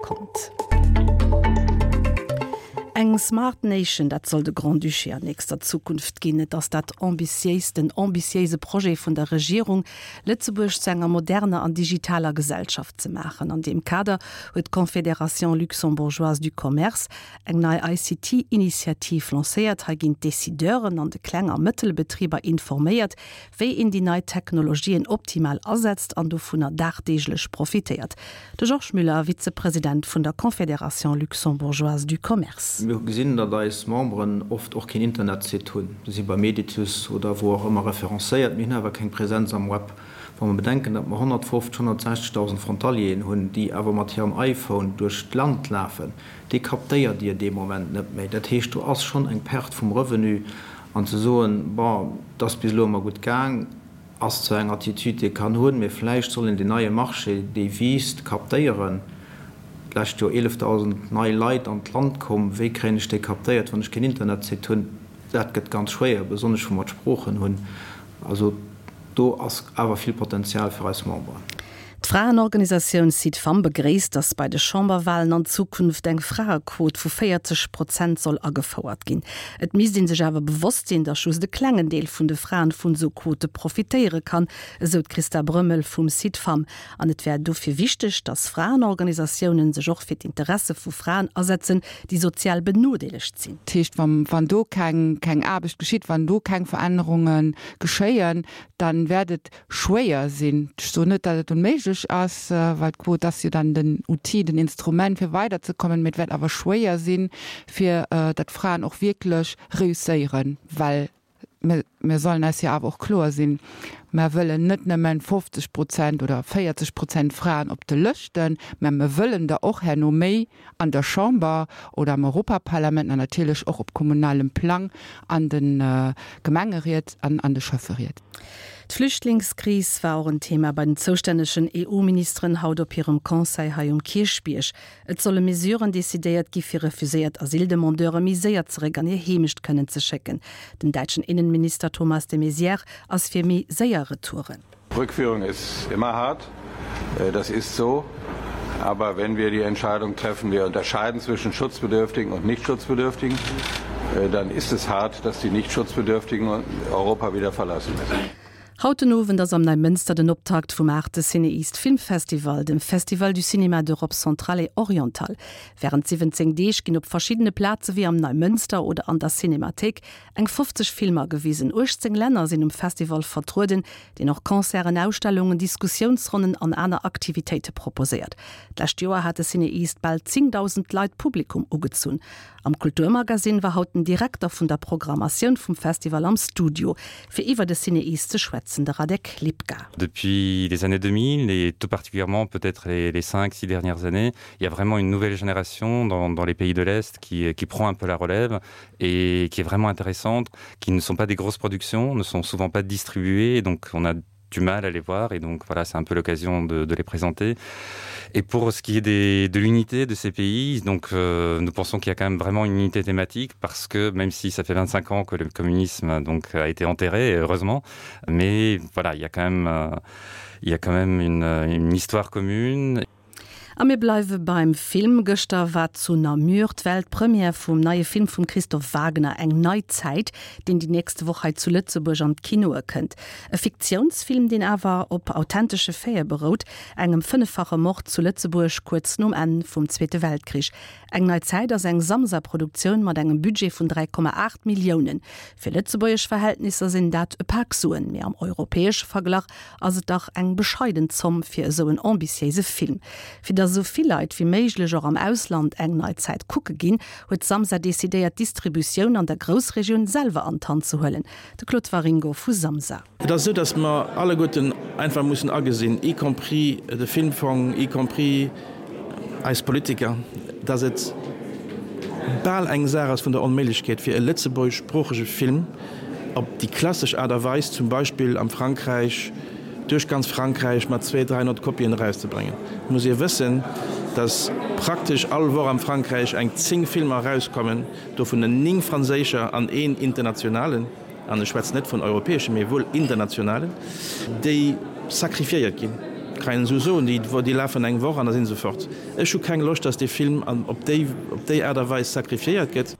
konnt. Eng Smart Nation, dat soll de Grand-Duché an nächster Zukunft ginn. Et ass dat ambitiéist, den ambitiéise Projet vun der Regierung, Lëtzebuerg zu enger moderner an digitaler Gesellschaft ze maachen. An deem Kader huet d'Confédération luxembourgeoise du commerce eng nei ICT-Initiativ lancéiert. Hei ginn d'Decideuren an de Kleng a Mëttelbetriber informéiert, wéi een déi nei Technologien optimal asetzt an dovunner dagdeeglech profitéiert. De Georges Müller, Vizepresident vun der Confédération luxembourgeoise du commerce. Mir hu gesinn, datt eis Memberen oft och keen Internetsite hunn. Se si bei Meditus oder wou och ëmmer referencéiert, mee hunn awer keng Präsenz am Web. Wa mer bedenken, datt mer 150, 160.000 Frontalieren hunn, déi awer mat hirem iPhone duerch d'Land lafen, dee captéiert Dir dee Moment net méi. Dat heescht, do ass schonn eng Perte vum Revenu. An ze soen, bon, et ass bis elo ëmmer gutt gaang, ass zwar eng Attitude, déi ee kann hunn, mee vläicht soll een deen neie Marché, dee wiisst, captéieren. D'lescht Joer 11.000 nei Leit an d'Land komm. Wéi kréien ech déi captéiert, wann ech keen Internetsite hunn? Dat gëtt ganz schwéier, besonnesch wou mer d'Sproochen hunn. Also do ass awer vill Potenzial fir eis Memberen. D'Fraenorganisatioun Cid-Femmes begréisst, datt bei de Chamberwalen an Zukunft eng Fraequot vu 40 Prozent soll agefouert ginn. Et misst ee sech awer bewosst sinn, datt just e klengen Deel vun de Fraen vun esou Quote profitéiere kann, esou d'Christa Brömmel vum Cid-Femmes. An et wär dofir wichteg, datt Fraenorganisatiounen sech och fir d'Interesse vu Fraen asetzen, déi sozial benodeelegt sinn. Dat heescht, wann do keng Aarbecht geschitt, wann do keng Verännerunge geschéien, dann wäert et schwéier sinn. Ech soen net, datt et onméiglech ass, well d'Quot ass jo dann den Outil, den Instrument, fir weiderzekommen, mee et wäert awer schwéier sinn, fir datt d'Fraen och wierklech reusséieren, well mir, mir sollen eis jo awer och kloer sinn, mer wëllen net nëmmen 50 Prozent oder 40 Prozent Fraen op de Lëschten, mä mer wëllen der och herno méi an der Chamber oder am Europaparlament an natierlech och op kommunalem Plang an de Gemengeried an an de Schäfferied. D'Flüchtlingskris war och en Thema bei den zoustännegen EU-Ministeren haut op hirem Conseil hei um Kierchbierg. Et solle Mesuren decidéiert gi fir refuséiert Asyldemandeure méi séier zeréck an hir Heemecht kënnen ze schécken. Den däitschen Innenminister Thomas de Maizière ass fir méi séier Retouren. Rückführung ist immer hart, äh, das ist so. Aber wenn wir die Entscheidung treffen, wir unterscheiden zwischen Schutzbedürftigen und Nichtschutzbedürftigen, äh, dann ist es hart, dass die Nichtschutzbedürftigen Europa wieder verlassen müssen. Haut den Owend ass am Neimënster den Optakt vum aachte CinEast Filmfestival, dem Festival du cinéma d'Europe centrale et orientale. Wärend 17 Deeg ginn op verschiddene Plaze wéi am Neimënster oder an der Cinémathéik Eng 50 Filmer gewisen. 18 Länner sinn um Festival vertrueden, deen och Concerten, Ausstellungen, Diskussiounsronnen an aner Aktivitéite proposéiert. D'lescht Joer hat de CinEast bal 10.000 Leit Publikum ugezunn. Am Kulturmagasinn war haut den Direkter vun der Programmatioun vum Festival am Studio, fir iwwer de CinEast ze schwätzen, de Radek Lipka. Depuis les années 2000 et tout particulièrement peut-être les, les 5, 6 dernières années, il y a vraiment une nouvelle génération dans, dans les pays de l'Est qui, qui prend un peu la relève et qui est vraiment intéressante, qui ne sont pas des grosses productions, ne sont souvent pas distribuées, donc on a du mal à les voir et donc voilà c'est un peu l'occasion de, de les présenter et pour ce qui est des, de l'unité de ces pays donc euh, nous pensons qu'il y a quand même vraiment une unité thématique parce que même si ça fait 25 ans que le communisme donc a été enterré heureusement mais voilà il y a quand même euh, il y a quand même une, une histoire commune et A mir bleiwe beim Film. Gëschter war zu Namur d'Weltpremière vum neie Film vum Christophe Wagner Eng nei Zäit, deen déi nächst Woch hei zu Lëtzebuerg an d'Kinoe kënnt. E Fiktiounsfilm, deen awer op authentesche Faite berout, engem fënneffache Mord zu Lëtzebuerg kuerz nom Enn vum Zweete Weltkrich. Eng nei Zäit ass eng Samsa-Produktioun mat engem Budget vun 3,8 Milliounen. Fir lëtzebuergesch Verhältnisser sinn dat e Pak Suen, mee am europäesche Verglach ass et dach eng bescheiden Zomm fir esou en ambitiéise Film. Fir datt esou vill Leit wéi méiglech och am Ausland eng nei Zäit kucke ginn, huet Samsa decidéiert d'Distributioun an der Groussregioun selwer an d'Hand ze huelen. De Claude Waringo vu Samsa. Et ass esou, datt mer alleguerten einfach mussen agesinn, y compris de Filmfong, y compris eis Politiker, datt et bal eng Saach ass vun der Onméiglechkeet, fir e lëtzebuergeschsproochege Film op déi klassesch Aart a Weis, zum Beispill am Frankräich, duerch ganz Frankräich mat zwee, 300 Kopien erauszebréngen. Et muss ee wëssen, datt praktesch all Woch am Frankräich eng 10 Filmer erauskommen, dovunner 9 franséischer an een internationalen, an ech schwätzen net vun europäeschen, mee wuel internationalen, déi sacrifiéiert ginn. Kann een esou soen, déi, déi lafen eng Woch an da si se fort. Ech hu keng Loscht, datt dee Film an, op déi, op déi Aart a Weis sacrifiéiert gëtt.